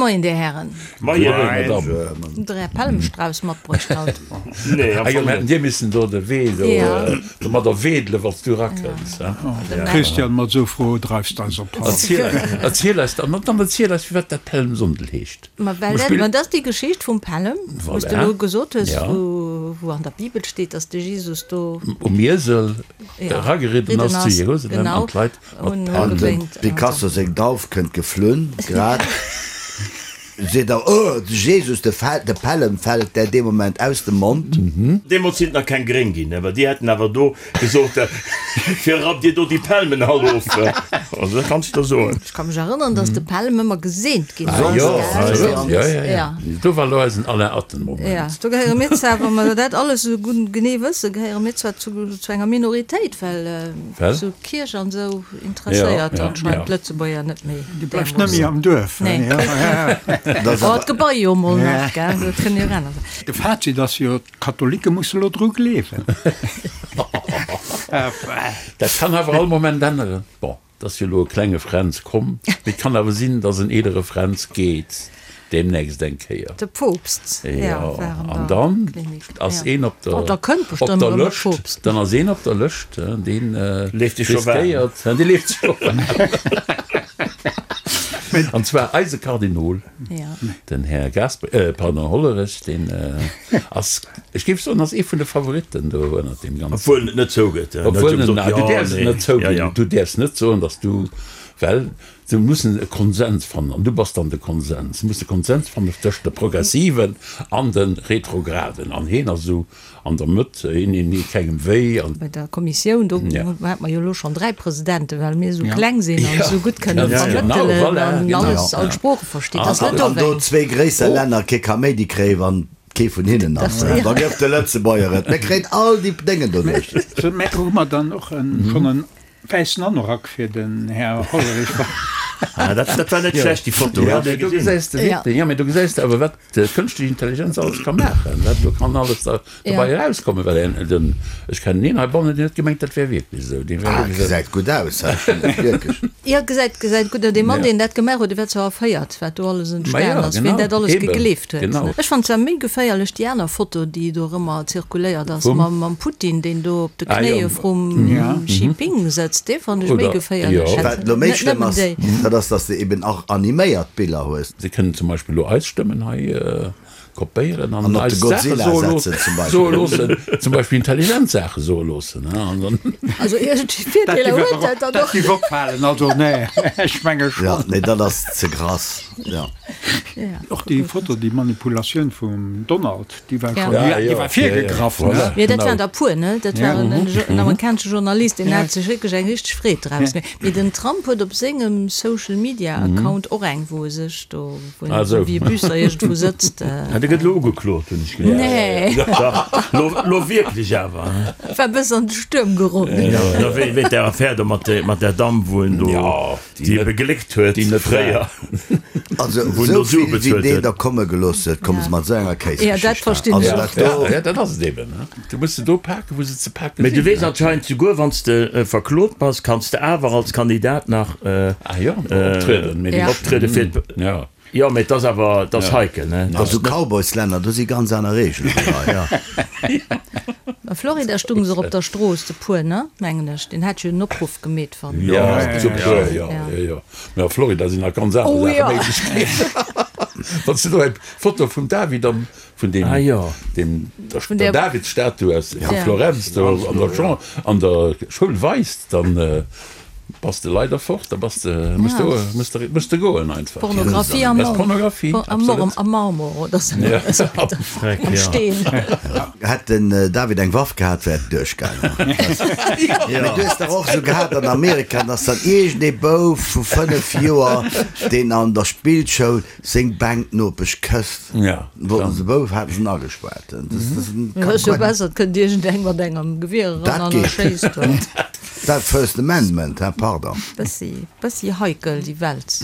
Moien, Dir Hären. Moien, Madame. Hutt Der Är Pelmstrauss matbruecht haut? Nee, am Ah jo, Fong mir hätten net. dir missen do de Wee do domadder wedelen, wann s du erakënns, he? Christian, mat esou Froe dreifs d'eis op d'Hals. Erziel eis, erziel eis dann, dann erziel eis, firwat dat Pelmsonndel heescht. Ma well dat, ma dat ass déi Geschicht vum Pellem, wou s de Voilà. elo gesot hues, Ja. wou, wou an der Bibel steet, dass de Jesus do. Um Iesel Ja, erageridden ridden ass zu ass, Jerusalem an genau. d'Leit mat Hunn Pelmen. An dem ugewénkt an Picasso esou. seng Dauf kënnt geflunn, grad seet er, Oh, de Jesus, de Fel, de Pellem fält där dee Moment aus dem Mond. Deemools sinn et nach keng Gréng ginn, awer déi hätten awer do gesot, Fir rappt Dir do déi Pelmen all of. Also dat kanns de der soen. Ech ka mech erënneren, dass de Pelm ëmmer geseent ginn Ah ass, jo, gell? ah jo, ja, ja, ja. Do war elo eisen Alain Atten-Moment. Ja, do gehéiere mir zwar, wa mer dat alles esou gutt genee wëssen, gehéiere mir zwar zu, zu enger Minoritéit, well Well? esou Kierch an esou interesséiert Ja, ja, anscheinend ja. d'Lëtzebuerger net méi Dir bleift net méi am Duerf, Nee. ja, ja. Dat ass Oh, awer. d'Gebai jo mol nach, gell, dat kënnt jo och aner sinn. De Fazit ass jo, D'Katholike musse lo dru gleewen. Dat kann awer all Moment änneren. Bon, et ass jo elo e klenge Fränz komm, mee et kann awer sinn, datt en eelere Fränz geet deemnächst eng Kéier. De Poopst, Jo, war an an der dann Klinik. ass een op der Oh, da kënnt op bestëmmt der erëm e Lëscht, Poopst. dann ass een op der Lëscht, deen Leeft sech scho waarm. riskéiert, dee leeft sech scho waarm. An zwar eise Kardinol. Den Här Gasper, pardon, Hollerech, deen ass, ech géif soen, ass ee vun de Favoritten do ënnert deem Ganzen. Obwuel en et net zougëtt. Obwuel en, du däerfs et net zouginn. Du däerfs net soen, datt du, well se mussen e Konsens fannen an du bass dann de Konsens. Se musse Konsens fannen tëscht de Progressiven an de Retrograden an heen ass esou An der Mëtt, een een deet kengem wéi an. Bei der Kommissioun, do hate mer jo elo schonn 3 Presidenten, well mir esou kleng sinn an esou gutt kënne vermëttelen an alles, all d'Sprooche verstinn. Dat ass net An do dowéinst. zwéi gréisser Länner kee Kaméidi kréien, wann kee vun hinnen ass, da gëff de Lëtzebuerger et. Mir kréien all déi Déngen doduerch. Mä hu mer dann och schonn en wäissen Anorak fir den Här Hollerich? Ah, dat, dat war net schlecht, déi Foto. Jo, mee do gesäis de wierklech, jo, mee do gesäis de awer, wat d'kënschtlech Intelligenz alles ka maachen, wat do kann alles da dobei erauskommen, well en, den, ech kennen een heibannen, deen huet gemengt, dat wär wierklech esou, deen wär Ah, wierklech esou. gesäit gutt aus, hä? Wierklech. Jo, gesäit, gesäit gutt aus. Dee Mann, deen dat gemaach huet, dee war zwar erféiert, wat do alles entstan ass, wien dat alles gegleeft huet. Ech fannen zwar méi geféierlech déi aner Foto, déi do erëmmer zirkuléiert ass, mam Putin, deen do op de Knéie vrum Xi Ping sëtzt. Dee fannen ech méi geféierlech. Wat elo méi schlëmm ass, dat ass, datt s de eben och animéiert Biller hues. Se kënnen zum Beispill elo eis Stëmmen hei kopéieren an An op de eis Saache Godzilla soe setzen zum Beispill. soe loossen, zum Beispill intelligent Saache soe loossen. An dann. Also iergendwéi Virdeeler huet dat dann Dat och. géif opfalen, also nee, ech menge Ja, schonn. nee, dat ass ze grass, ja. Och déi Foto, déi Manipulatioun vum Donald, déi war schonn, Ja, déi jo, war ja, ja, virgegraff, ne? voilà, Jo, dat genau. waren der puer, ne? Dat war en, en amerikanesche Journalist, deen hat sech wierklech eng richteg Freed draus gemaach. Mee den Trump huet op sengem Social Media Account och eng, wou e sech do, wou en esou wéi e Büsser iergendwou sëtzt. Ah, dee gëtt elo ugeklot, hunn ech gehéiert. Nee. Dach, lo, lo wierklech awer. War e bëssen an de Stuerm geroden. Jo, jo, wéi, wéi där Affär do mat, mat där Damm, wou en do, déi e begléckt huet fréier. Also Wou en do esou Sue vill wéi bezuelt deen huet. der komme gelooss huet, komme se mat esou enger Ja, dat Kéisgeschicht. verstinn Also ech dat och. do. Ja, dat ass et eben. Du muss se do paken, wou se ze paken Mee du sinn. weess anscheinend, souguer wann s de verklot bass, kanns de awer als Kandidat nach Ah jo, optrieden, mee Ja. optriede fir d'. Ja. Jo, mee et ass awer, et ass heikel, ne? Et A ass sou net. Cowboyslänner, do si ganz aner Reegelen wéi hei. A Florida stung se och op der Strooss, de puer, ne, mengen ech. Deen hat jo en Opruff gemeet, wann. Jo, zu puer, jo, jo, jo. Mee a Florida sinn nach ganz aner Oh Saache jo. méiglech ginn. Wann s de do eng Foto vum David am, vun deem, Ah jo. deem, der, Vun der der. Davidsstatue aus vu Ja. Florenz do an der Champ, an der Schoul weist, dann bass de leider fort, da bass de, muss de, muss de, muss de goen einfach. Pornografie am Dat ass Pornografie, absolut. Am Marmor oder sou. Ja. Am Steen. Hätt den David eng Waff gehat, wär et duerchgaangen. Mee du hues dach och esou gehat an Amerika, dass dann iergend ee Bouf vu 5 Joer, deen an der Spillschoul seng Bänknopesch kësst, wollten se Bouf, haten se en agespaart. Dat ass jo besser, et kënnt iergend eng mat engem Gewier eran an erschéisst en. Dat First Amendment, hein, pardon. Bëssi, bëssi heikel déi Welt.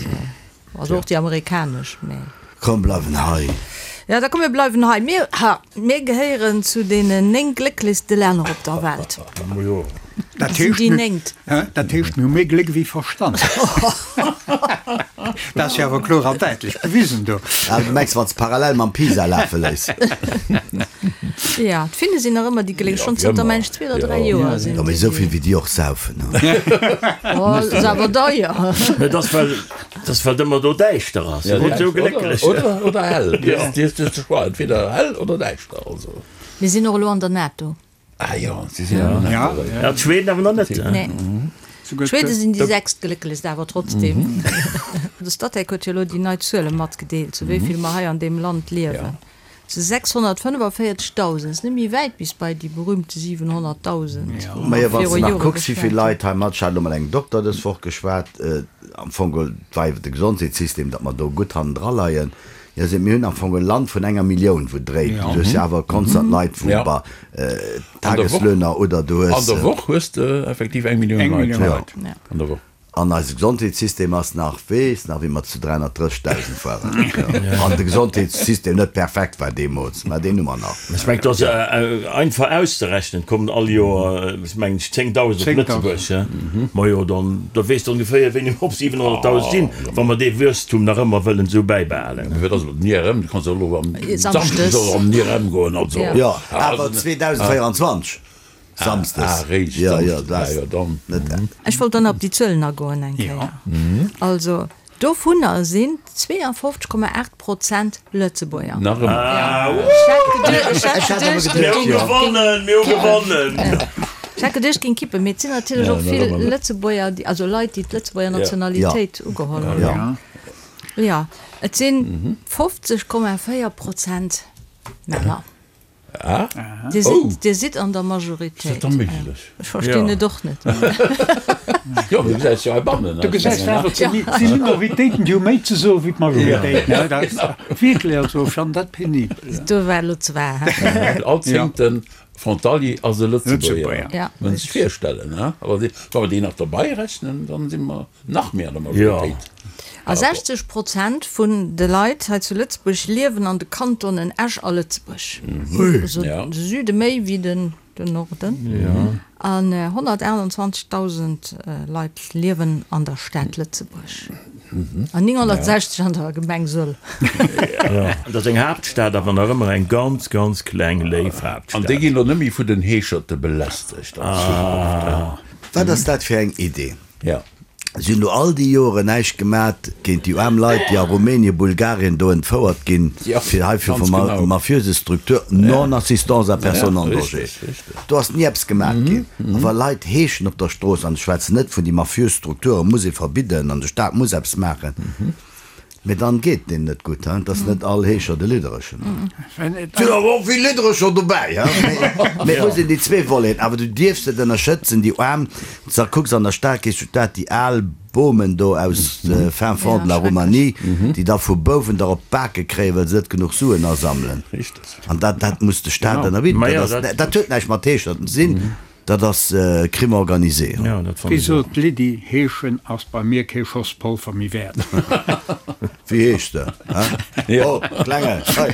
Also och déi amerikanesch, mä. Komm bleiwen hei. Ja, da komm mir bleiwen hei. Mir, ha, mir gehéieren zu deenen 9 glécklechste Länner op der Welt. Dat Sinn heescht, déi mir, néngt. dat heescht, mir hu méi Gléck wéi Verstand. Dat ass jo awer kloer an däitlech bewisen do. Ah, du mengs, wann s parallel mam Pisa lafe léiss. Jo, d'Finne sinn nach ëmmer déi Glécklech, schonn zënter, meng ech, zwee oder dräi Joer sinn Jo, mee esou vill wéi déi och saufen, he. Oh, ass awer deier. Mä et ass well, et ass well et ëmmer do däischter ass. Ja, Sinn esou glécklech. Oder, oder hell. Du hues de Choix, entweder hell oder däischter, also. Mir sinn och elo an der NATO. Ah jo, si sinn an der NATO. Ja, d'Schweden awer nach net. Nee. D'Schwede sinn déi sechstglécklechst awer trotzdem. De Statec huet jo elo déi nei Zuele matgedeelt, zu wéi vill mer hei an deem Land liewen. Zu 645.000. Ass net méi wäit bis bei déi berühmte 700.000, wou mer Majo, wann s viru de nach Jore kucks, wéi vill geschwat hunn. Leit hei mat, ech hat elo mat engem Dokter dës Woch geschwat, am Fong geholl, et war iwwer de Gesondheetssystem, datt mer do gutt hannendra leien. Jo, se, mir hunn am Fong e Land vun enger Millioun, wou dréit. Du hues jo awer konstant Leit, wou bei Tageslöhner oder du hues. An der Woch hues de effektiv eng Millioun Leit an der Woch. An eise Gesondheetssystem ass nach, weess nach, wéi mer zu 330.000 waren. An de Gesondheetssystem net perfekt war deemools, mä deen hu mer nach. Ech mengen, et ass einfach auszerechnen, et kommen all Joer, ech mengen, 10.000 op Lëtzebuerg. Majo, dann da weess de ongeféier, wéini mer op 700.000 sinn, wa mer dee Wuesstum nach ëmmer wëllen esou bäibehalen. Mee wat ass mat den IRM? Du kanns jo elo am Samschdes och am IRM goen, also. Jo, awer 2024 Samsdes. Ah, réischt Samschdes, ah jo, dann. Ech wollt dann op déi Zuelen agoen eng Kéier. Also, Dovunner sinn 52,8 Prozent Lëtzebuerger. Nach ëmmer. Ech hat geduecht, Mir hu gewonnen, mir hu gewonnen! Ech hat geduecht, géing kippen, mee et sinn natierlech och vill Lëtzebuerger, déi, also Leit, déi d'Lëtzebuerger Nationalitéit ugeholl hunn. Jo, et sinn 50,4 Prozent Männer. Ah. Dir sidd, dir sidd an der Majoritéit. Ass dat da méiglech? Ech verstinn et och net. Jo, du gesäis jo heibannen. Du gesäis awer, et si Minoritéiten, déi hu méi ze soen wéi d'Majoritéiten. Dat ass wierklech, also ech fannen dat penibel. Do war elo zwar, he? All zéngte Frontalier ass e Lëtzebuerger. Ja. Muss een sech virstellen, he? Awer wa mer déi nach dobei rechnen, dann si mer nach méi an der Majoritéit. A 60 Prozent vun de Leit hei zu Lëtzebuerg liewen an de Kantonen Esch a Lëtzebuerg. Also de Süde méi wéi den Norden. An 128.000 Leit liewen an der Stad Lëtzebuerg an 960 an der Gemeng Sëll. Dat ass eng Haaptstad, awer nach ëmmer eng ganz, ganz kleng, léif Haaptstad. An déi ginn elo net méi vun den Heescherte belästegt an Zukunft. Wat ass dat fir eng Idee? Si hunn do all déi Joren näischt gemat géint déi aarm Leit, déi a Rumänien, Bulgarien do entfouert ginn, fir hei fir vu mafiöse Struktur, non-assistance à personne en danger. Do ass ni eppes gemat ginn. A wa Leit heeschen op der Strooss, an ech schwätzen net vun déi mafiös Strukture muss ee verbidden an de Staat muss eppes maachen, Mee dann geet deen net gutt, hein? T'ass net all Heescher de Lidderechen. Et sinn awer och vill Lidderecher dobäi, hein? Mee et muss een déi zwee Voleten, awer du dierfs net ënnerschëtzen, déi Aarm, s da kucks an der Stad, gees du d'Stad, déi al Bomen do aus fin fond de la Roumanie, déi da vu Bouwen der op d'Bake kréien, well se net genuch Suen asammelen. An dat, dat muss de Staat ënnerbidden. Dat ass, dat huet näischt mat Heescherten ze sinn. Dat ass Crime organisé. Wéi sot d'Lydie, Heeschen ass bei mir kee Schoss Polver méi wäert. Wéi heescht de? Hä? Oh, Klenge, hei!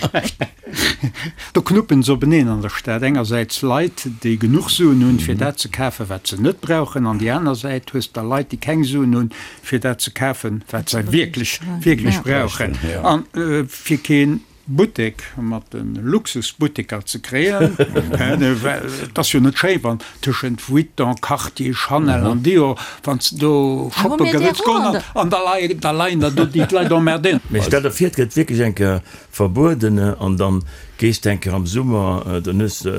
Do knuppen se openeen an der Stad. Engersäits Leit, déi genuch Suen hunn, fir dat ze kafen, wat se net brauchen, an déi aner Säit hues de da Leit, déi keng Suen hunn, fir dat ze kafen, wat se wierklech, wierklech brauchen. An fir keen Buttek mat de Luxusbutteker ze kréien, well et ass jo net schéi wann tëschent Vuitton, Cartier, Chanel an Dior, wann s de do shoppe wëlls goen an da leien da leien der do déi d'Leit emmerdéieren. Mee stell der vir, et gëtt wierklech eng Kéier verbueden an dann gees de eng Kéier am Summer, dann hues de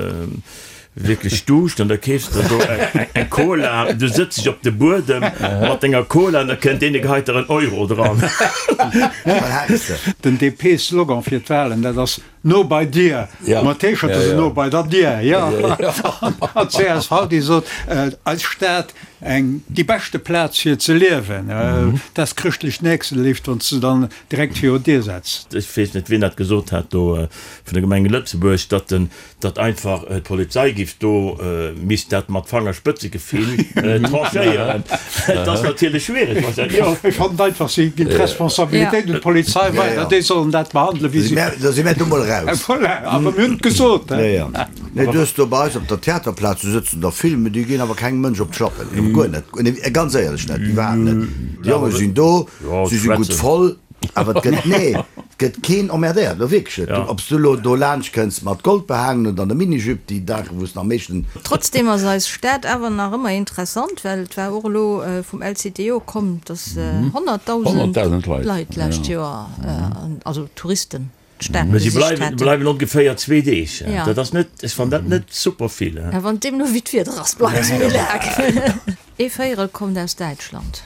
Wierklech Duuscht an da keefs de do eng Cola, du sëtz dech op de Buedem mat denger Cola an da kënnt deen, dee geheit der en Euro dran. Den DP-Slogan fir d'Wahlen, dat ass No bei dir! Mat T-Shirt ass et No bei der Dier, jo. An d'CSV, déi sot, Eis Stad, eng déi beschte Plaz fir ze liewen. Dat ass chrëschtlech Nächstenléift, wann s de dann direkt viru d'Dier setz. Ech weess net, wien dat gesot hat do vun der Gemeng Lëtzebuerg, datt den datt einfach d'Polizei giff do misst dat mat Fangerspëtzegefill tranchéieren. Et ass natierlech schwiereg, wa se. Jo, ech fannen einfach, si ginn d'Responsabilitéit un d'Polizei weider, déi sollen dat behandelen, wéi si. Da si mär do mol raus. eraus. Voilà, awer mir hunn et gesot. Jo, jo. Nee, du hues do bei eis op der Theaterplaz, do sëtzen der vill, mee déi ginn awer kengem Mënsch op d'Schlappen. Guer net, ganz éierlech net, iwwerhaapt net. Déi Jonge sinn do, si si gutt voll. Awer et gëtt, nee, et gëtt keen emmerdéiert, elo wierklech net. Ob s du elo do laanscht kënns mat Gold behaangen oder an der Minijupe, déi Daache wou s de am meeschten. Trotzdem ass eis Stad awer nach ëmmer interessant, well et war och elo vum LCTO komm, dass 100.000 Leit d'lescht Joer, also Touristen, d'Stad Mä si besicht bleiwen, hätten. bleiwen ongeféier zwee Deeg. Ja. Dat ass net, ech fannen dat net super vill. Ja, wann deemno wéi d'Wieder ass, bleiwe se méi laang. Ee Véierel kommt aus Däitschland.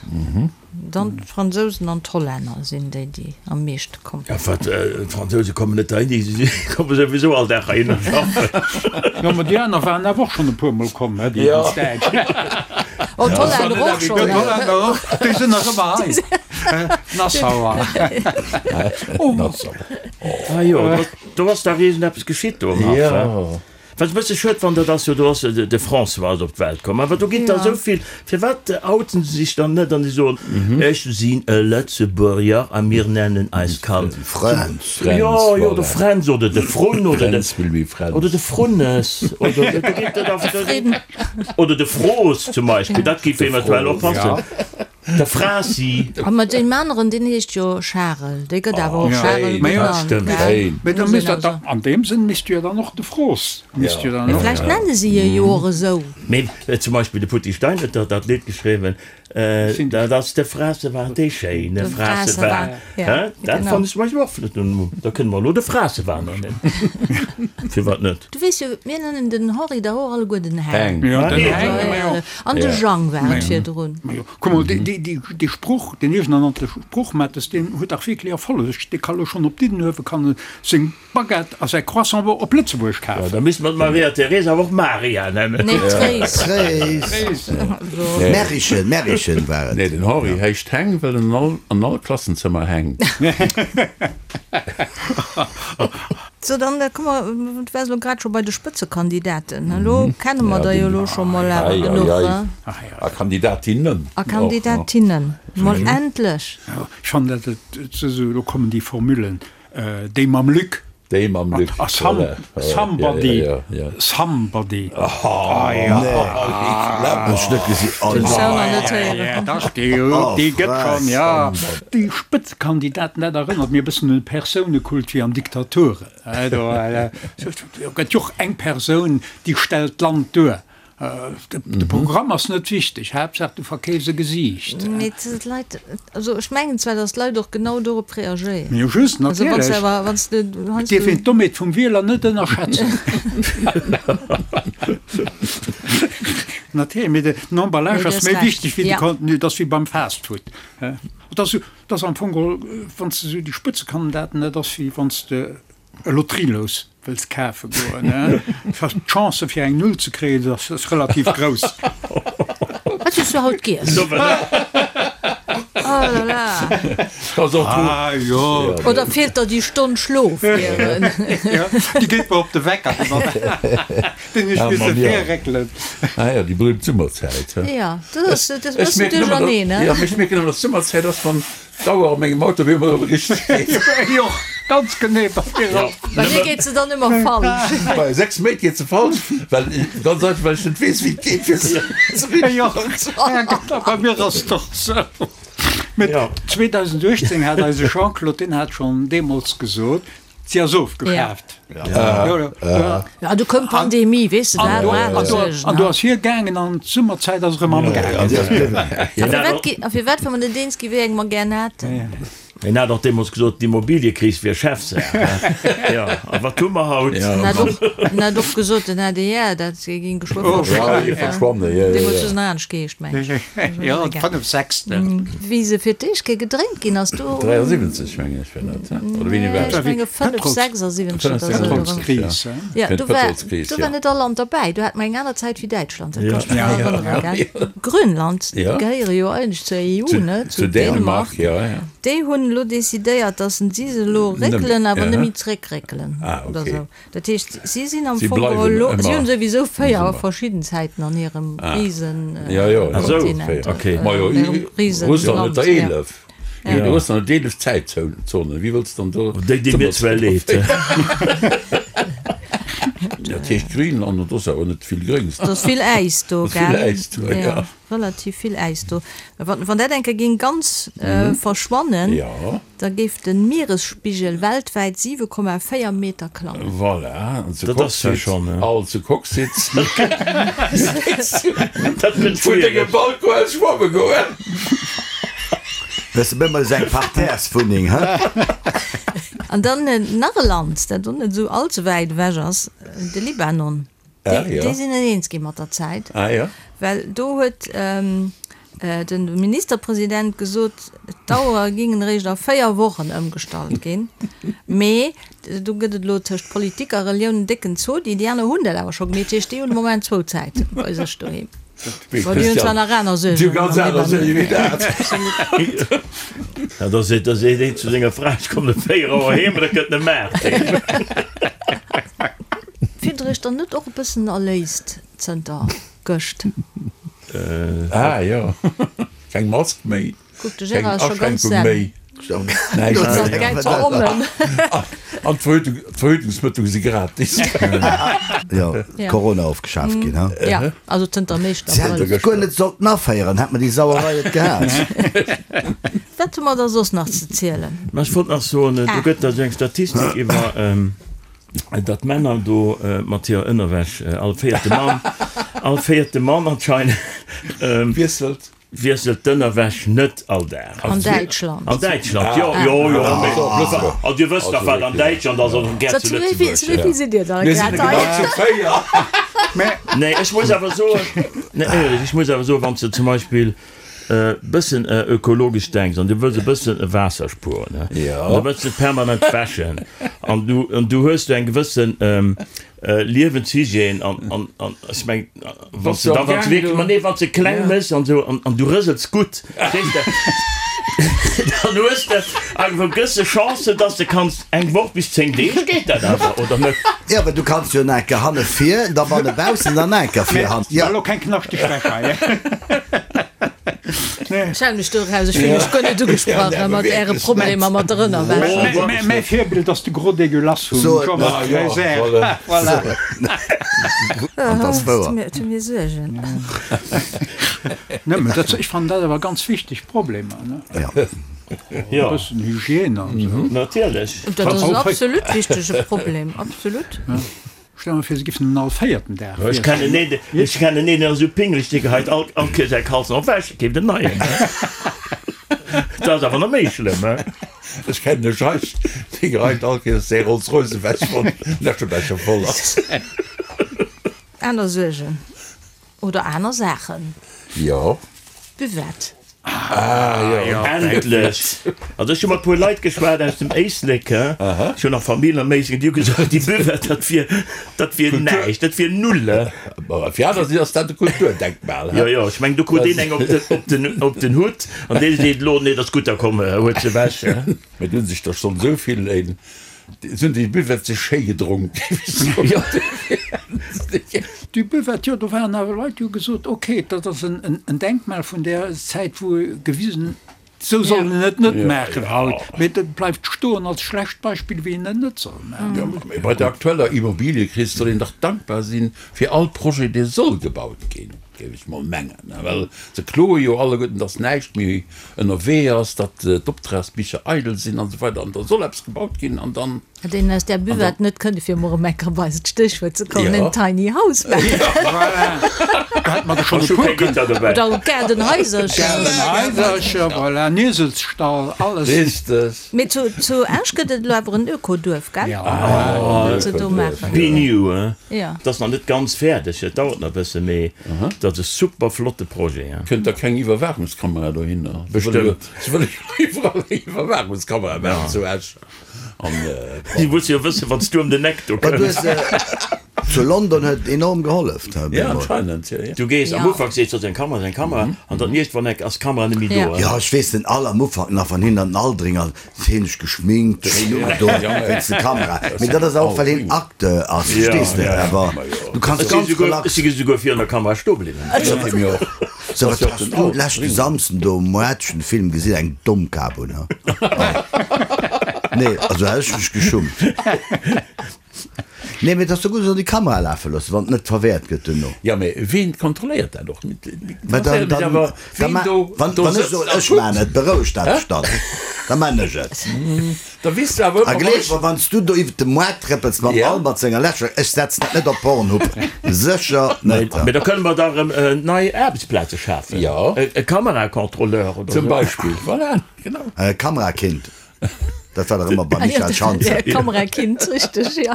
Dann d'Fransousen an d'Hollänner sinn déi, déi am meeschte kommen. Ja, wat, d'Fransouse kommen net heihin, déi komme souwisou all Dag heihinner schaffen. Jo, ma déi aner waren awer och schonn e puermol komm, he, déi ganz Däitsch. Oh, d'Hollänner och schonn. D'Hollänner och, déi sinn nach ëmmer hei. Nassauer. Nassauer. Ah jo, do ass dach iergendeppes geschitt do am Haff, he? Wat ech e bësse schued fannen, dat ass jo, do ass de François ass op d'Welt komm, awer do ginn der esou vill, firwat outen se sech dann net an se soen, ech sinn e Lëtzebuerger a mir nennen eist Kand Fränz. Jo, jo, de Fränz oder de Frunn oder de, oder de Frunnes oder do ginn der da, oder de Froos zum Beispill, dat géif eventuell och passen. De Frasi. A mat deem aneren, deen heescht jo Charel, dee gëtt awer och Charel genannt, gell? Mee da misst dat da, an deem Sënn misst du jo dann och de Froos, misst jo dann och. Mee vläicht nenne si e jo och esou. Mee zum Beispill de Putty Stein huet dach dat Lidd geschriwwen, dat ass de Frasewar, dee schéine Frasewar. Hä? Dat fannen ech zum Beispill och flott. Da kënne mer elo de Frasewar nennen. Firwat net? Du weess jo, mir nennen den Henri dach och alleguer den Heng. Heng. An de Jang war et virdrun. Majo, kuck mol, dee Sproch, deen iergendernannte Sproch, Mattes, deen huet dach wierklech Erfolleg. Dee ka lo schonn op Diddenuewe kann e seng Baguette a säi Croissant op Lëtzebuerg kafen. Jo, da misste mer d'Maria Teresa awer och Maria nennen. Nee, Tréis. Tréis. Märischen, Märischen war et. Nee, den Henri heescht Heng, well en an all Klassenzëmmer hänkt. So, dann komme mer, du waars elo grad scho bei de Spëtzekandidaten, elo kenne mer der jo elo scho mol awer genuch, he? A Kandidatinnen. A Kandidatinnen, mol endlech! Ech fannen dat et esou, elo kommen déi Formulen, déi mam Luc. Déi mam Luc, A somebody, somebody. Déi gëtt schonn, jo. Déi Spëtzekandidaten, dat erënnert mir e bëssen un de Persounekult wéi an Diktaturen. Do gëtt jo och eng Persoun, déi stellt d'Land duer. De Programm ass net wichteg, Haaptsaach du verkeefs e Gesiicht. Mee d'Leit, also ech mengen zwar, datt d'Leit och genau dorop reagéieren. Jo just, natierlech. Et dierf een d'Dommheet vum Wieler net ënnerschätzen. Natierlech, mee den Emballage ass méi wichteg wéi de Contenu. Et ass wéi beim Fastfood. Et ass esou, et ass am Fong geholl, wann s de esou déi Spëtzekandidaten, dat ass wéi wann s de e Lotterielous wëlls kafe goen, d'Chance fir eng Null ze kréien ass relativ grouss. Wat hues du haut giess? Oh la la. Ah jo. Oder feelt der déi Stonn Schlof? Jo, déi geet mer op de Wecker. Den ech misse virréckelen. Ah jo, déi berühmt Summerzäit, he? Jo, dat ass dat ass e bëssen duercherneen, he? Jo, mee ech mierken ëmmer, dass d'Summerzäit ass, wann d'Auer op mengem Auto op eemol erëm richteg geet. Jo, ganz genee, bei mir och. Bei mir geet se dann ëmmer falsch. Bei 6 Méint geet se falsch, well, ganz einfach, well ech net weess, wéi et geet, fir se ze richteg Jo, bei mir ass et och esou. Mee 2018 hat eise Jean-Claude, deen hat schonn deemools gesot, Si ass ofgeschaaft. Ja, du koum d'Pandemie, weess de, dat war aner Suergen. An do ass hie gaangen an d'Summerzäit ass erëm amgaangen. A firwat, wa mer net eens ginn, wéi eng mer gär hätten? Hien hat och deemools gesot, d'Immobiliëkris wier Chefsaach. Jo, a wat hu mer haut? En hat och, en hat och gesot, den ADR, dat géing geschwë verschwannen. Deemools hu se nach anescht geheescht, mengen ech. Jo, d'Fënnefsechstel. Wéi se fir d'éischt Kéier gedréint ginn ass, do. 73, mengen ech, war dat, oder wéini war dat? Ech menge 5, 76 oder esou. Pëtrolskris, he? Ja, do war, do war net all Land derbäi. Do hat mer eng aner Zäit wéi Däitschland, dat kann ech mech nach erënneren, gell? Grönland, déi gehéiere jo eigentlech zur EU, ne? Zu Dänemark. Déi hunn elo decidéiert, datt si se elo réckelen, awer net méi zréckréckelen oder esou. Dat heescht, si sinn am Fong geholl elo, si hunn souwisou 4 verschidden Zäiten an hirem Risenkontinent. Russland huet der 11. Jo, du hues dann 11 Zäitzonen, wéi wëlls dann do. Déi di mir zwar leed. Dat heescht Greenland, an do ass awer net vill Gréngs. Do ass vill Äis do, gell? Vill Äis do, jo. Relativ vill Äis do. Wann dat eng Kéier géing ganz verschwannen, da géif de Mieresspigel weltwäit 7,4 Meter klammen. Voilà, an zu Coxsite, all zu Coxsite, vun dengem Balcon aus schwamme goen. Wëss de, bëmol ass eng Parterreswunneng, he? An dann nach e Land, dat och net esou all ze wäit ewech ass, de Libanon. Déi sinn net eens gi mat der Zäit, well do huet de Ministerpresident gesot, d'Auere gingen eréischt a 4 Wochen ëmgestallt ginn. Mee do gëtt et elo tëscht Politik a Relioun en décken Zodi. Déi aner hunn dat awer scho gemeet, dat heescht, déi hunn de Moment zwou Zäiten bei sech doheem. Bon, déi hunn zwar nach aner Suergen am Libanon. Da seet een zu senger Fra, ech kommen ëm 4 Auer heem, an da kënnt en ëm 8 heem. Fillt der iech dann net och e bëssen erléist zënter gëscht? Ah jo, keng Mask méi, Kuck, de keng Gérard ass scho ganz Aschränkung zen. méi, näischt méi. An d'Verhütungsmëttel si gratis. Jo, Corona ofgeschaaft ginn, ha? Ja, also zënter am éischten Si hätten Abrëll. et guer net sollten aféieren, hätt mer déi Sauerei net gehat. Wat hu mer da soss nach ze zielen? Mä ech wollt nach soen, do gëtt da sou eng Statistik iwwer datt Männer do mat hirer Ënnerwäsch, all véierte Mann, all véierte Mann anscheinend, Wiesselt. wiesselt d'Ënnerwäsch net all Dag. An Däitschland. An Däitschland, jo, jo, jo, mee also Dir wësst dach, wat an Däitschland ass, an gär zu Lëtzebuerg. Zu wéi vill sidd Dir da Mir sinn grad genau hei? zu 4. Nee, ech muss awer soen, nee, éierlech, ech muss awer soen, wann s de zum Beispill bëssen ökologesch denks an du wëlls e bëssen Waasser spueren, an da wëlls de permanent wäschen an du an du hues do eng gewëssen Liewenshygiène an an an ech meng wann s de da wann s de wierklech, ma nee, wann s de kleng méchs an esou an an du rësels gutt, verstees de, dann hues de eng gewësse Chance, dass de kanns eng Woch bis 10 Deeg geet dat awer, oder net? Jo, well du kanns jo en Enker hanne vir, da banne baussen, dann enker vir hannen. Jo. Elo keng knaschteg Wäsch hei. Ech halen mech do eraus, ech fillen mech guer net ugesprach mat äre Problemer mat der Ënnerwäsch. Mäi Virbild ass de Gros Dégueulasse vum Jean-Marc Reiser. Voilà. An dat ass wouer. Et hu mir Suergen. Net, mä dat, ech fannen dat awer ganz wichteg Problemer, ne? Jo. E bëssen Hygiène an esou. Natierlech. Dat ass en absolut wichtege Problem, absolut. Stell mer vir, se giffen en all véierten Dag Ech wiesselen. kennen een, ech kennen een, deen ass esou pingeleg, dee geheit all, all Kéier säi Kalzen op ewech, keeft en neien. Dat ass awer nach méi schlëmm, he? Ech kennen e Scheich, dee geheit all Kéiers säi Rolls Royce ewech, wann den Äschebecher voll ass. Aner Suergen oder aner Saachen. Jo. Buvette. Ah jo. Endlech! Also ech hu mat puer Leit geschwat aus dem Éislek, he, ech hunn nach Famill am Éislek, déi hu gesot, déi Buvette, dat wier, dat wier näischt, dat wier null, he. Bon, fir aner si ass dat e Kulturdenkmal, he. Jo, jo, ech mengen, do krut een eng op den, op den, op den Hutt an dee seet elo, nee, dat ass gutt, da komm, huet se ewech, he. Mee do hu sech der schonn esou vill een Se hunn déi Buvette sech schéi gedronk, géif ech soen. Déi Buvette, jo, do waren awer Leit, déi hu gesot, ok, dat ass en Denkmal vun där Zäit, wou gewisen, esou soll een et net maachen haut, mee dat bleift stoen als schlecht Beispill, wéi een et net soll maachen. Jo, mee bei der aktueller Immobiliëkris soll een dach dankbar sinn fir all Projet, dee soll gebaut ginn, géif ech mol mengen, well se kloe jo alleguerten, datt näischt méi ënnerwee ass, datt d'Optragsbicher eidel sinn an esou weider an da soll eppes gebaut ginn an dann. Hätt een aus där Buvette net kënne fir emol erëm eng Kéier op eist Stéchwuert ze kommen, en Tiny House maachen. Voilà, do hätte mer der schonn e puer kënnen. Oder Gaardenhaisercher. Gaardenhaisercher, voilà, en Ieselsstall, alles. Richteg. Mee zu Esch gëtt et elo awer en Ökoduerf, gell? Ja. Wat se do maachen. Be New, hein? Ja. Dat ass nach net ganz fäerdeg, et dauert nach e bësse, mee dat ass e super flotte Projet. Hein? Kënnt da keng Iwwerwaachungskamera dohinner? Bestëmmt. Se wëlle jo iwwerall eng Iwwerwaachungskamera maachen zu Esch. An Si musse jo wëssen, wann s du ëm den Eck do kënns. Zu London huet et enorm gehollef. Ja, anscheinend, jo, jo. Du gees am Ufank, sees du, ass eng Kamera, ass eng Kamera, an dann iergendwann enk ass d'Kamera net méi do. Jo, ech weess den all am Ufank nach, wann hien an den Aldringer hien sech geschminkt, schéin ugedoen wéinst de Kamera. Mee dat ass och well hien Acteur ass, verstees de? Awer du kanns Ech si ganz souguer, relax. ech si souguer virun der Kamera stoe bliwwen. So, wat has du leschte Samsden do um Moartchen de Film gesinn, eng domm Kap un, ha? Nee, also hätt ech mech geschummt. Nee, mee et ass jo gutt, esou déi Kamera lafe loossen, wann et net verwäert gëtt duerno. Jo, mee ween kontrolléiert dat och? Mä dann, dann, dann ma, wann, wann ech soen, ech maan et, berouegt dat dech dann? Da maan ech et. Da weess du awer A gleef mer, wann s du do iwwert de Moart trëppels mam Albert senger Läscher, ech setzen dat net op Pornhub, sécher net. Mee da kënne mer da erëm nei Aarbechtsplaze schafen. Jo. E Kamerakontrolleur oder esou. Zum Beispill, voilà, genau. E Kamerakind. Dat war dach ëmmer beim Michael Schanze. Kamerakind, richteg, jo.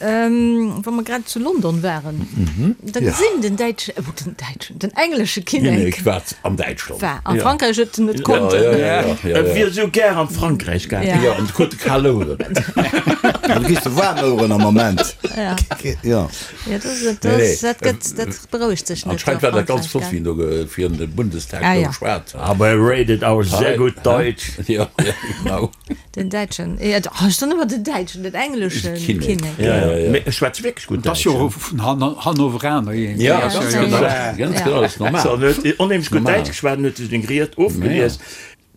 Wa mer grad zu London waren, da gesinn den däitschen, oh, den däitschen, den englesche Kinnek. Kinnek war an Däitschland. War a Frankräich huet en net konnten. Ja, ja, ja, ja. E wier esou gär an Frankräich gaangen. Jo, an krut kal Oueren. Du kriss de waarm Oueren am Moment. Ja. Jo. Ja, dat, dat, dat gëtt, dat berouegt sech net. Anscheinend war dat ganz flott, wéi en do virun dem Bundestag do geschwat huet. Aber er redet auch sehr gut Deutsch. Ja, ja, genau. Den däitschen, ja, oh, ech soen ëmmer den däitschen, den engleschen Kinnek. Ja, ja. Mee e schwätzt wierklech gutt Dat ass jo och vun Hannoveraner iergendwéi. Ja, ganz genau, ganz genau, dat ass normal. So, en huet onheemlech gutt Däitsch geschwat, en huet sech den Griet ofgelies.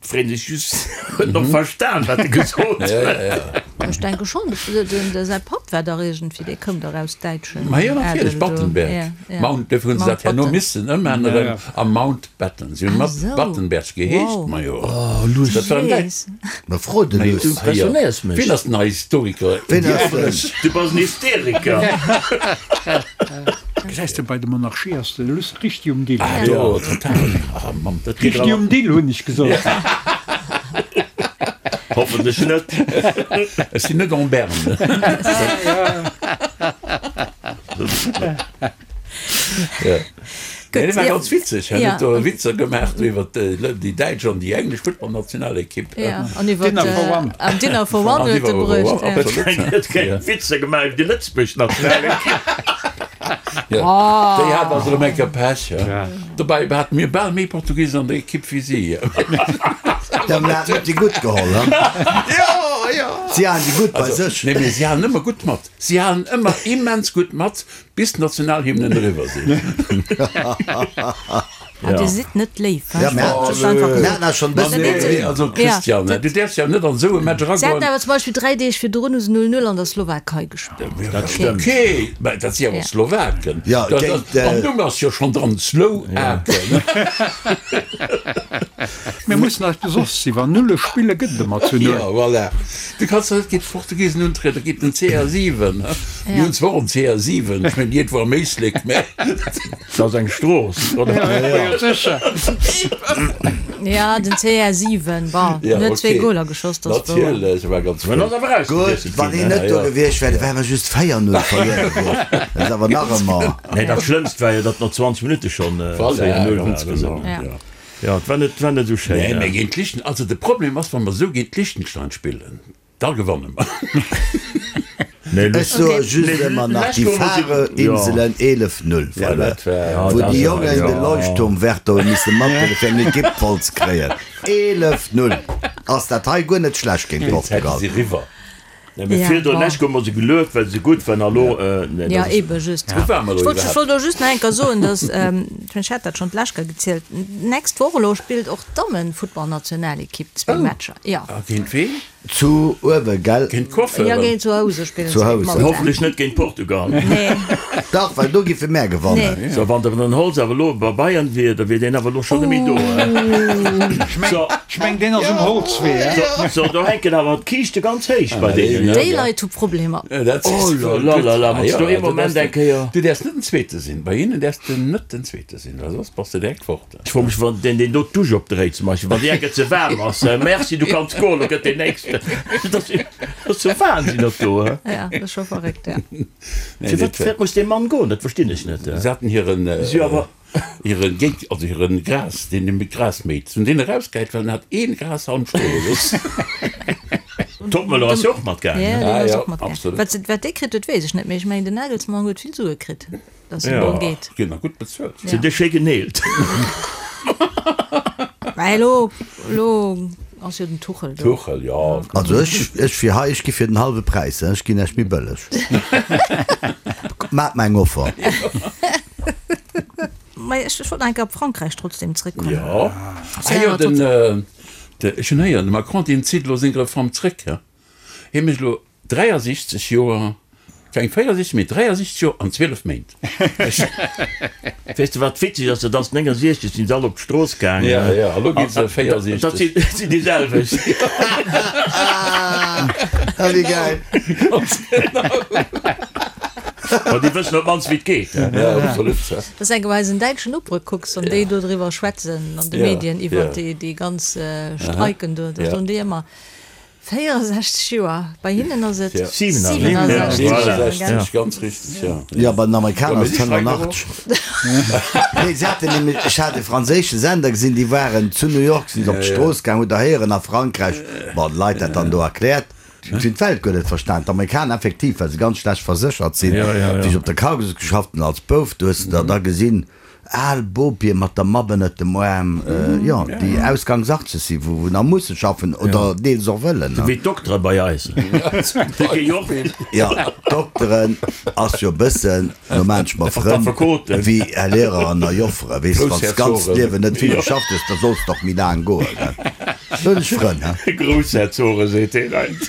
Freet sech just, huet en och verstan, wat e gesot huet? Ech denke schonn, de säi Papp war dach iergendwéi, dee koum dach aus däitschen Ma jo, natierlech, Adel do. Battenberg. Mount, dofir hunn se dat herno missen ëmänneren a Mountbatten. Si hunn mat Battenberg geheescht, ma jo. Dat war en Däitsch. Ma fro de Luss. Du impressionéiers mech. Wien ass den Historiker? Wien ass den? Du bass en Hysteriker. Gesäis de, bei de Monarchie ass de Luss Richtig um Dill. Ah jo, total. Ah Mann, dat geet Richtig um Dill, hunn ech gesot. Hoffentlech net. Ech sinn net en berne. Nee, dat war ganz witzeg. Hien huet do Witzer gemaach do iwwer déi däitsch an déi englesch Futtballnationalekipp. Ja, an iwwer Dinner for One. An Dinner for One huet e bruecht. Absolut. Huet keng Witzer gemaach iwwer déi lëtzebuergesch Nationalekipp. Ja, déi hat also erëm eng Kéier Pech. Dobäi hate mir bal méi Portugisen an der Ekipp wéi si. Ja, mir haten net déi gutt geholl, he? Jo, jo. Si halen déi gutt bei sech. Nee, mee si halen ëmmer gutt mat. Si halen ëmmer immens gutt mat, bis d'Nationalhymnen eriwwer sinn. Ah, Dir sidd net léif, Ja, mir haten eis schonn e bëssen. Nee, also Christian, du däerfs jo net an esou e Match Si haten eragoen. awer zum Beispill 3 Deeg virdrun hu se 0, 0 an der Slowakei gespillt. Dat stëmmt. Okay, mä dat si awer Slowaken. Ja, géint. Am Numm ass jo schonn dran, Slowaken. Mir mussen eis besoss sinn, wann Nulle spille gëtt et ëmmer zu Null. Ja, voilà. Du kanns der net géint d'Portugisen untrieden, géint den CR7. Mir hunn zwar och en CR7, ech mengen iergendwou am Éislek, mä. Dat ass eng Strooss, oder? Jo, sécher. Ja, den CR7, bon, en huet zwee Goler geschoss, dat ass wouer. Natierlech, war ganz flott. Gutt, wann hien net do gewiescht wär, da wäre mer just 4, 0 verluer gewiescht. Dat ass awer nach ëmmer. Nee, dat Schlëmmst war jo, datt no 20 Minutte schonn 4, 0 war. Jo, et war net, war net esou schéin. Nee, mä géint Lichten, also de Problem ass, wa mer esou géint Liechtenstein spillen, da gewanne mer. Ech soe just ëmmer nach déi Faroe-Inselen 11, 0 verluer, wou déi Jongen de Leuchtturmwärter hu misse mathuelen, fir eng Ekipp voll ze kréien. 11, 0 ass dat hei guer net schlecht géint Portugal. Nee, mee virdrun lech hu mer se gelueft, well se gutt waren, a lo, nee, Ja, dat ass. ebe just. Wou ware mer Ech elo wollt, ech wollt iwwerhaapt? och just nach eng Kéier soen, dass, ech mengen, ech hat dat schonn d'lescht Kéier gezielt, d'nächst Woch elo spillt och d'Dammenfuttballnationalekipp zwee Matcher. Ja. A géint ween? Zu uewe, gell? Géint d'Coiffeuren? Ja, géint zu Housen spillen Zu se géint Housen. Malta. Hoffentlech net géint Portugal. Nee. Dach, well do giffe mär gewannen. Nee. So, wann den Holz awer elo bei Bayern wier, da wier deen awer elo schonn net méi do. Ech meng, So. ech meng, deen ass um Holzwee, he? So, so, do hänken awer d'Kiischte ganz héich bei deenen. Déi Leit hu Problemer. Oh la la la la, wann s du ee Moment eng Kéier. Du däerfs net den Zweete sinn. Bei hinnen däerfs de net den Zweete sinn, well soss bass de direkt fort. Ech froe mech, wann deen, deen do d'Dusch opdréit zum Beispill, wann déi eng Kéier ze waarm ass, Merci, du kanns goen, lo gëtt deen Nächsten. Dat ass, dat ass jo Wahnsinn, dat do, he? Ja, dat ass scho verréckt, ja. Firwat, firwat muss dee Mann goen? Dat verstinn ech net. Se haten hiren. Si awer. Hiren Géig, also hiren Gras, deen dee Gras méit, se hunn deen erausgehäit, well en hat een Grashalm stoe gelooss. Toppmöller ass jo och matgaangen. Ja, deen Ah ass jo, och matgaangen. absolut. Wat se, wat dee kritt huet, weess ech net, mee ech mengen, den Nagelsmann huet vill Sue kritt, datt en do geet. Ginn nach gutt bezuelt. Sinn déi schéi geneelt. Mä elo, elo ass jo den Tuchel do. Tuchel, jo. Also ech, ech fir hei, ech gi fir den hallwe Präis, ech ginn Iech méi bëlleg. Maacht mer eng Offer. Mä. Mä ech wollt nach eng Kéier op Frankräich trotzdem zréckkommen. Jo, ah jo, den, ech hunn héieren, de Macron, deen zitt elo seng Reform zréck, he. Hie mécht elo 63 Joer, keng 64, mee 63 Joer an 12 Méint. Weess de wat witzeg ass, dat ass 69 sinn se all op d'Strooss gaangen. Ja, ja, a lo gi se 64. Dat sinn déi selwecht. Ah, wéi gäil. Ganz genau. Ma déi wëssen op d'mannst wéi et geet. Ja, absolut. Dass eng Kéier eisen däitschen Nopere kucks, wann déi do driwwer schwätzen an de Medien iwwert déi ganz Streiken do, da soen déi ëmmer, 64 Joer, bei hinnen ass et 67 Joer, gell? Ganz richteg, jo. Jo, bei den Amerikaner ass et 85. Nee, se haten nämlech, ech hat e franséische Sender gesinn, déi waren zu New York, sinn se op d'Strooss gaang, hutt Der héieren a Frankräich, bon, d'Leit dat dann do erkläert, si hunn d'Welt guer net verstan. D'Amerikaner effektiv, well se ganz schlecht verséchert sinn, wéi ech op der Cargolux geschafft hunn als Bouf, do hues de der da gesinn, Al Bopie mat der Mapp ënnert dem Aarm, jo, déi ausgangs 80 sinn, wou nach musse schaffen oder deels och wëllen. Sou wéi d'Doktere bei eis. Déi gi jo och. Jo, d'Dokteren ass jo e bëssen, no maan ech mer Frënn, wéi Här Lehrer an Här Joffere, weess de, wann s d'ganzt Liewen net vill geschafft hues, da solls de och méi laang goen, gell. Do hunn ech Frënn, he. Groussherzoge seet deen eent.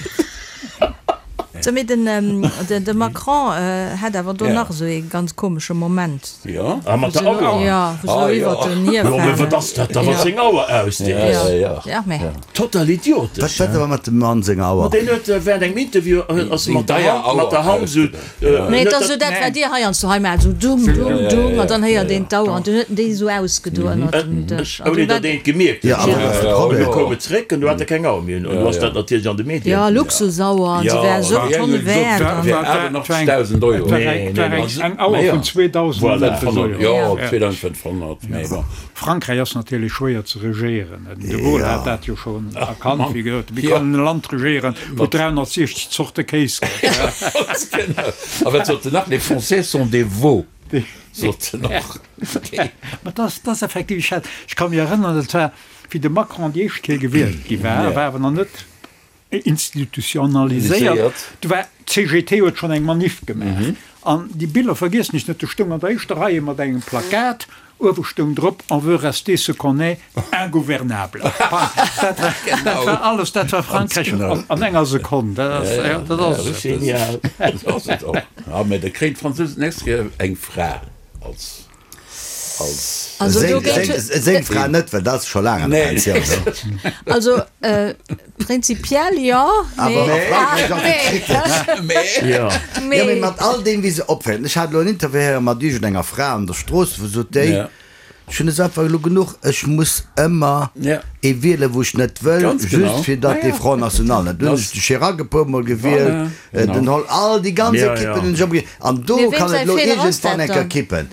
Sou, mee den, de Macron hat awer do nach esou ee ganz komesche Moment. Jo. Ah, mat der Auer? Jo, wou se do iwwert den hir Jo, mee wat ass dat da, wat seng Auer ausdeet? Jo, ja, mee. Total idiotesch. Wat war mat dem Mann senger Auer? Ma deen huet während engem Interview ass mat der Hand, mat der Hand esou. Nee, et ass esou dat, wat dir heiansdo hei maacht, esou dung, dung, dung, an dann héiert een d'Auer an dunn huet en déi esou ausgedo ënnert dem Dësch. An Ouni dunn war. datt een et gemierkt huet. Jo, awer wat ass de Problem? Du koum et zréck an du hat e keng Auer méi un. An du ass dat natierlech an de Medien. Jo, Luxusauer, an se wär esou Tonne wäert. An. 88.000 Euro. Nee, nee, nee. Eng Auer vun 2.500 Euro. Jo, 2.500, mee bon. Frankräich ass natierlech schwéier ze regéieren. Den de Gaulle hat dat jo schonn erkannt, wéi gesot, Wie kann en Land regéieren, wou et 360 Zorte Kéis gëtt? Genau. A wat sot en nach? Les Français sont des veaux, sot en och. Mä dat ass, dat ass effektiv, ech hat, ech ka mech erënneren, dat war, wéi de Macron déi éischt Kéier gewielt gi war, war awer nach net institutionaliséiert. Do war d'CGT huet schonn eng Maniff gemaach. An déi Biller vergiessen ech net, do stoung an der éischter Rei ee mat engem Plakat, uewe stoung drop, On veut rester ce qu'on est, ingouvernable. Dat war, dat war alles, dat war Frankräich an enger Sekonn. Dat ass, dat ass et. Genial. Dat ass et och. Ja, mä da kréien d'Fransousen d'nächst Kéier eng Fra als. Also do géint. Seng Fra net, well dat ass scho laang an der Pensioun. Also prinzipiell jo, mee. Awer a Frankräich ass et kritesch. Jo. Jo, mee mat all deem, wéi se opféieren. Ech hat elo en Interview héiere mat iergendenger Fra an der Strooss, wou sot déi, Ech hunn es einfach elo genuch, ech muss ëmmer ee wielen, wou ech net wëll, just fir datt dee Front National net. Dunn hunn ech de Chirac e puer Mol gewielt, den Holl, all déi ganz Ekippen hunn ech ëmmer gewielt. An do kann et elo iergendwann eng Kéier kippen.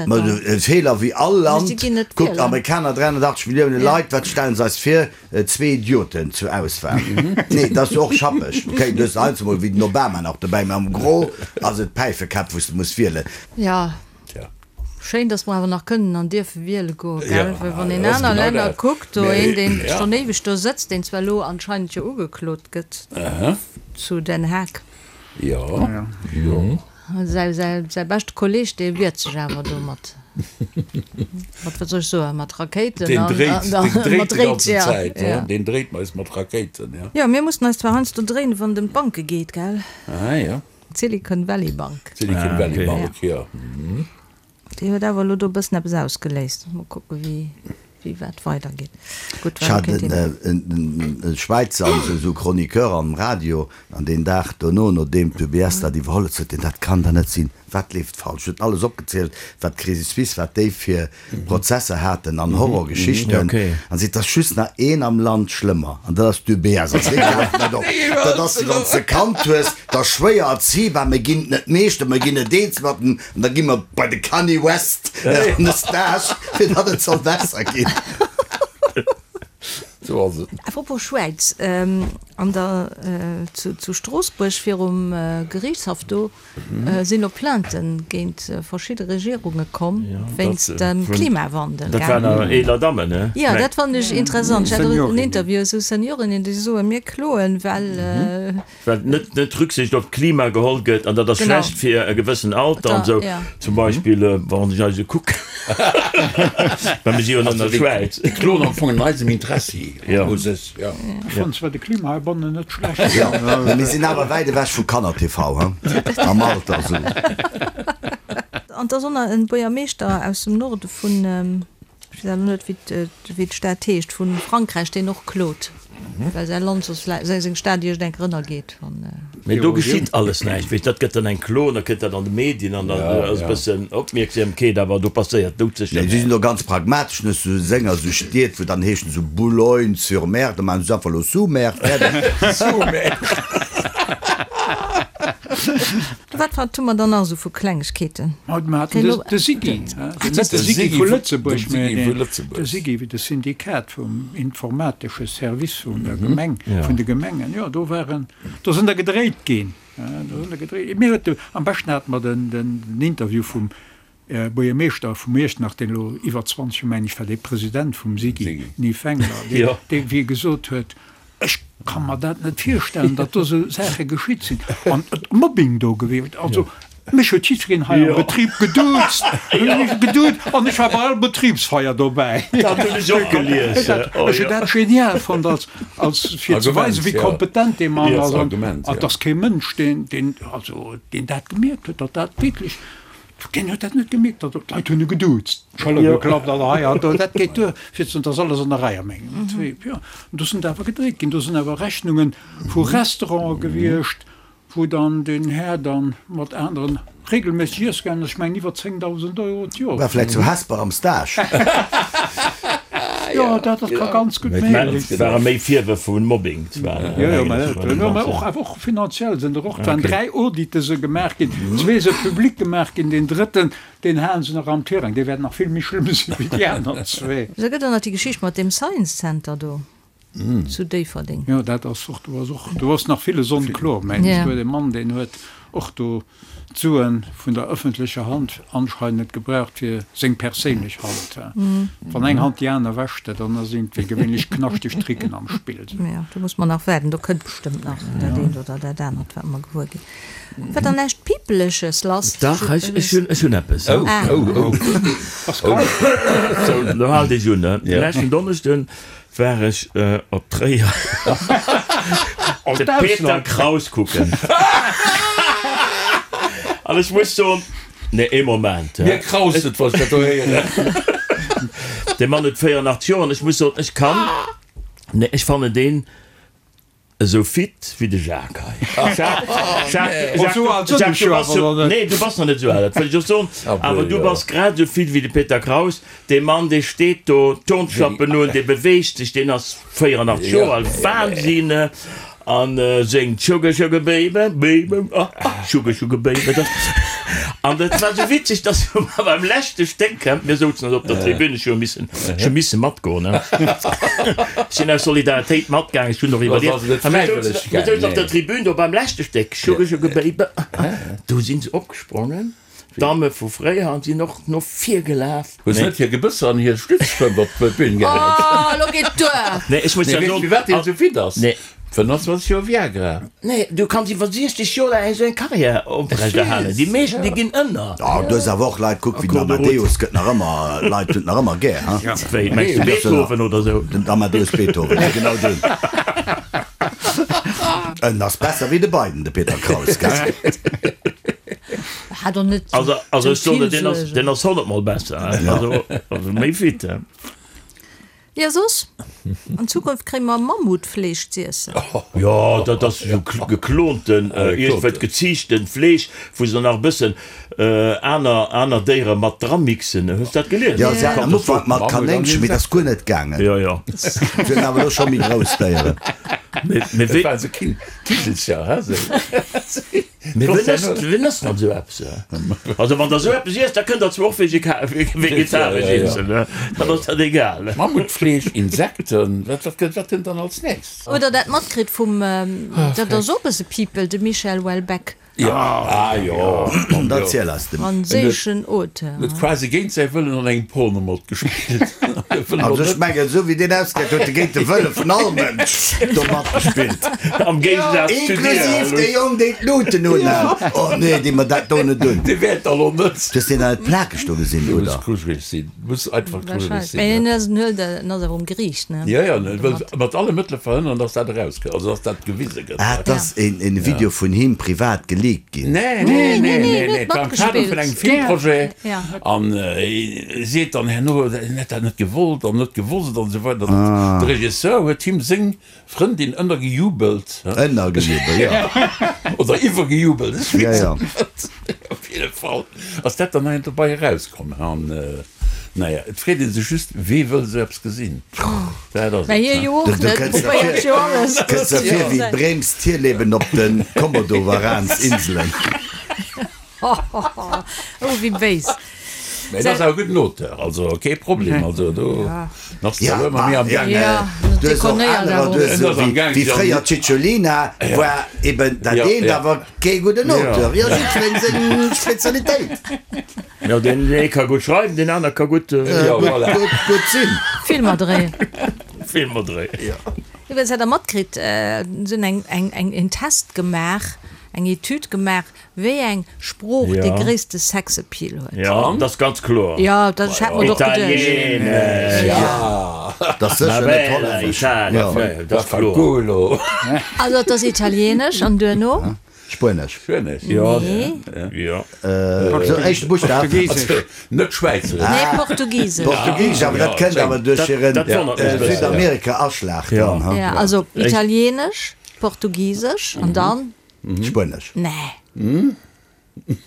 Ma e Feeler wéi all Land. Kuckt, Amerikaner, 380 Millioune Leit, wat stellen se eis vir? Zwee Idioten zur Auswahl. Nee, dat ass jo och schappeg. Okay, du hues heiansdo mol wéi den Obama nach dobäi, mä am Gros ass et Päifekäpp, wou s de muss wielen. Schéin, dass mer awer nach kënnen an dierfe wiele goen, gell? Well wann een aner Länner kuckt, do een, deen schonn éiweg do sëtzt, deen zwar elo anscheinend jo ugeklot gëtt zu Den Haag. Säi, säi, säi beschte Kolleeg, dee wiert sech awer do mat, mat, wat soll ech soen, mat Rakéiten Deen an, dréit, an, deen dréit mat déi Dréit, ganzen ja, Zäit, ja. deen dréit eis mat Rakéiten, ja. Jo, mir mussen eis zwar heiansdo dréinen, wann et ëm d'Banke geet, gell? Ah jo. D'Silicon Valley Bank. D'Silicon Valley Bank, jo. Déi huet awer elo do e bëssen eppes ausgeléist. Mol kucke wéi wéi wat weidergeet. Gutt, Ech hat en Schwäizer, esou Chroniqueur am Radio, an deen Dag dono, nodeem d'UBS dat iwwerholl huet, sot deen, dat kann der net sinn, wat leeft falsch? Huet alles opgezielt, wat d'Crédit Suisse, wat déi fir Prozesser haten an Horrorgeschichten an seet, et ass just nach een am Land schlëmmer an dat ass d'UBS. An si gräifen dat op. Dat ass, wann s de Kand hues, da schwéier erziebar, mir ginn et net meeschter, mir ginn et eens mat en an da gi mer bei de Kanye West an de Stage, fir datt et soll besser ginn. Sou ass et. Apropos Schwäiz. An der zu Stroossbuerg virum Geriichtshaff do sinn och Plaintë géint verschidde Regierunge komm wéinst dem Klimawandel. Dat waren awer eeler Dammen, ne? Jo, dat fannen ech interessant. Ech hat och en Interview, esou Seniorinnen, déi soen, mir kloen, well. Well net net Rücksicht op d'Klima geholl gëtt an dat ass schlecht fir e gewëssen Alter an esou. Zum Beispill wann ech eis ekucken, well mir si jo an der Schwäiz. Déi kloen am Fong an eisem Interessi u sech, jo. Ech fannen zwar de Klima heibannen net schlecht. Jo, mee mir sinn awer wäit ewech vu Kanner-TV, he, am Alter esou. An et ass och nach e Buergermeeschter aus dem Norde vun. Ech weess awer net, wéi d'Stad heescht, vu Frankräich, deen och klot, well säi Land soss vläicht, seng Stad iergend eng Kéier ënnergeet, wann. Mee do geschitt alles näischt, weess, dat gëtt dann eng Klo an da kënnt dat an de Medien an dann ass e bëssen Opmierksamkeet, awer do passéiert doudsécher Nee, si sinn do ganz pragmatesch, net sou Sénger, sou Stied, wou dann heeschen sou Boulogne-sur-Mer, da maachen se einfach elo Sous-Mer, fäerdeg. Sous-Mer. Wat wat hu mer dann nach esou vu Klengegkeeten? Mer haten de SIGI, net de SIGI vu Lëtzebuerg, mä de SIGI, de Syndikat vum informatesche Service vun der Gemeng, vun de Gemengen. Jo, do waren, do sinn der gedréit ginn. Do sinn der gedréit. Mir huet de, am beschten hate mer den, den Interview vum Buergermeeschter vu Iechternach, deen elo iwwer 20 Joer, mengen ech, war dee President vum SIGI, den Yves Wengler, deen, dee wéi e gesot huet, Ech ka mer dat net virstellen, datt do esou Saache geschitt sinn an et Mobbing do gewiescht. Also mech huet jiddwereen hei am Betrib geduuzt, geduut an ech war bei all Betribsfeier dobäi. Dat hunn ech och gelies. Ech hunn dat genial fonnt als, als fir ze weisen, wéi kompetent dee Mann ass an et ass kee Mënsch, deen, deen, also deen dat gemierkt huet, datt dat wierklech Deen huet dat net gemierkt, datt d'Leit hunn e geduuzt, d'Schëller geklappt an hei an do. Dat geet duer fir ze soen, et ass alles an der Rei a mengem Betrib. Jo, an do sinn der awer gedréit ginn. Do sinn awer Rechnunge vu Restaurante gewiescht, wou dann deen Här dann mat aneren regelméisseg iesse gaangen ass, ech mengen iwwer 10.000 Euro d'Joer. War vläicht zu Hesper am Stage. Jo, dat ka ganz gutt méiglech sinn. Et ware méi Virwërf vu Mobbing zwar. Jo, jo, mä och awer och finanziell sinn der och. Et waren 3 Audite se gemaach ginn, zwee se public gemaach ginn, deen drëtten, deen halen se nach am Tirang, dee wäert nach vill méi schlëmm sinn wéi déi aner zwee. Da gëtt och nach déi Geschicht mat deem Science Center do zu Déifferdeng. Jo, dat ass och, do ass och, do ass nach villes onkloer, mengen ech. Do huet e Mann, deen huet och do d'Suen vun der ëffentlecher Hand anscheinend gebraucht fir seng perséinlech Hand. Wann eng Hand déi aner wäscht, dann ass iergendwéi gewéinlech knaschteg Tricken am Spill. Jo, do muss mer nach waarden, do kënnt bestëmmt nach dat eent oder dat anert, wat mer gewuer ginn. War dann näischt Pipeleches lass? Dach, ech hunn, ech hunn eppes. Oh, oh, oh. Pascal. Sou, lo haalt iech un, ne? Leschten Donneschden war ech op Tréier de Peter Kraus kucken. An ech muss soen, nee, ee Moment. Mir kraust et, wann ech dat do héieren. Dee Mann huet 84 Joer an ech muss soen, ech kann, nee, ech fannen deen esou fit wéi de Jacques hei. Jacques, Jacques, Jacques, du bass jo, nee, du bass nach net esou al, dat wëll ech och soen, awer du bass grad esou fit wéi de Peter Kraus. Dee Mann, dee steet do, Turnschappen un, dee beweegt sech, deen ass 84 Joer al, Wahnsinn! An séngt Sugar, Sugar Baby, Baby, ah, ah, Sugar, Sugar Baby. Dat, an dat war esou witzeg, dass mer beim leschte Stéck, mir souzen also op der Tribün, ech hu missen, ech hu misse matgoen, ne? Ech sinn aus Solidaritéit matgaangen, ech hunn och iwwerlieft. A mir souzen, mir souzen op der Tribün do beim leschte Stéck, Sugar, Sugar Baby, ah, ah, do si se opgesprongen. D'Damme vu fréier sinn och no vir gelaf. Hu se net hir Gebësser an hir Stützstrëmp op d'Bün gehäit? Oh, lo geet duer! Nee, ech muss ja soen. Firwat deen esou fit ass? Nee. 25 Joer Viagra. Nee, du kanns iwwer 60 Joer laang esou eng Karriär oprechterhalen. Déi meeschten, déi ginn ënner. Oh, du hues awer och Leit, kuck wéi den Amadeus gëtt nach ëmmer, Leit hunn et nach ëmmer gär, ha? Wéi, mengs du Beethoven oder esou? Den Amadeus Beethoven, jo genau deen. En ass besser wéi de Biden, de Peter Kraus, gell? Hat och net Also, also ech sou soen vill der, deen ass, Suergen. deen ass honnertmol besser, hein. Also, also méi fit, hein. Jo, soss, an Zukunft kréie mer Mammutfleesch z'iessen. Jo, dat ass esou geklonten, iergendwéi geziichten Fleesch, wou se nach e bëssen aner, aner Déiere mat dramixen. Hues dat gelies? Jo, se haten am Ufank mat Kanéngchen, mee dat ass guer net gaangen. Jo, jo. Se hunn awer elo scho méi grouss Déieren. Mee, mee Dat wéi. waren esou Kigelcher, he, esou. Mee wien ass, wien ass dann esou eppes? Also wann der esou eppes iesst, da kënnt der zwar och vegetaresch iessen, dann ass dat egal. Mammutfleesch, Insekten, wat, wat gëtt, wat kënnt dann als nächst? Hutt der dat matkritt vum, dat ass och e bësse People, de Michel Houellebecq? Jo, ah jo, Da ziel eis de. Franséischen Auteur. Huet quasi géint säi Wëllen an engem Porno matgespillt. Also ech mengen, esou wéi deen ausgesäit, huet e géint de Wëlle vun all Mënsch do matgespillt. Am Géigesaz zu dir. Inklusiv dee Jong, deen d'Luuten unhat. Oh nee, dee mer dat do net un. Dee wäert da lo net. Du hues deen an et plakeg do gesinn, Du muss oder? grujeleg sinn. Du muss einfach grujeleg sinn. Mee en ass en huet en ass awer um Geriicht, ne? Jo, jo, en wëll mat alle Mëttele verhënneren, dass dat erauskënnt, also dass dat gewise gëtt. Ah, et ass een een Video vun him privat geleakt ginn. Nee, nee, nee, nee, nee, et war am Kader vun engem Filmprojet an e seet dann herno, en hätt dat net gewollt an net gewosst an esou weider. De Regisseur huet him seng Frëndin ënnergejubelt. Ënnergejubelt, jo. Oder iwwergejubelt, ech weess et net. Op jidde Fall ass dat dann nach dobei erauskomm. An naja, et freet ee sech just, Wee wëll esou eppes gesinn? Dat ass et. Mä hie jo och net, probéiert jo alles. Kënns der vir wéi Brems Tierleben op de Komodowaransinselen. Oh, wéi béis. Mä et ass awer e gudden Auteur, also kee Problem. Also do ass de elo ëmmer méi am Gaang. Du hues och anerer, du hues esou wéi fréier d'Cicciolina war eben dat eent, awer kee gudden Auteur. Jo, jiddwereen seng Spezialitéit. Jo, deen ee ka gutt schreiwen, deen aner ka gutt. Gutt sinn. Filmer dréien. Filmer dréien. Iwwregens hat Der matkritt, se hunn eng, eng, en Test gemaach, eng Etüd gemaach, Wéi eng Sprooch dee gréisste Sexappeal huet? Jo, dat ass ganz kloer. Jo, dat ech hat mer och geduecht. Italienesch. Dat ass sécher net Hollännesch. Dat ass kloer. Also et ass Italienesch an duerno? Spuenesch. Spuenesch, jo. Nee. Jo. Sou, éischte Buschtaf. Portugisesch. Net Schwäizeresch. Nee, Portugisesch. Portugisesch, awer dat kënnt awer duerch hiren Südamerika-Aschlag dann. Jo, also Italienesch, Portugisesch an dann? Spuenesch. Nee.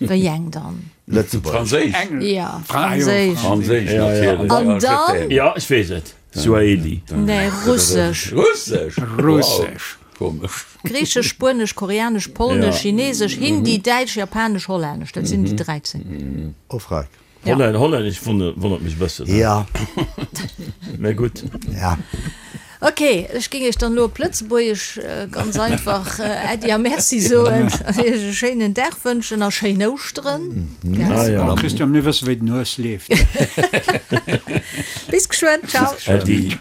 Wéi eng dann? Lëtzebuergesch. Franséisch. Ja, Franséisch. Franséisch, natierlech. An dann? Ja, ech weess et. Suaheli. Nee, Russesch. Russesch? Russesch. Komesch. Griichesch, Spuenesch, Koreanesch, Polnesch, Chinesesch, Hindi, Däitsch, Japanesch, Hollännesch. Dat sinn déi 13. Oh, freck. Holland, Hollännesch wonnert mech e bëssen. Ja. Mä gutt. Ja. Ok, ech géing iech dann elo op Lëtzebuergesch ganz einfach Äddi a Merci soen an iech e schéinen Dag wënschen a schéin Ouschteren. Ah ja. Christian, mir wësse wéi den Hues leeft. Bis geschwënn, ciao. Äddi.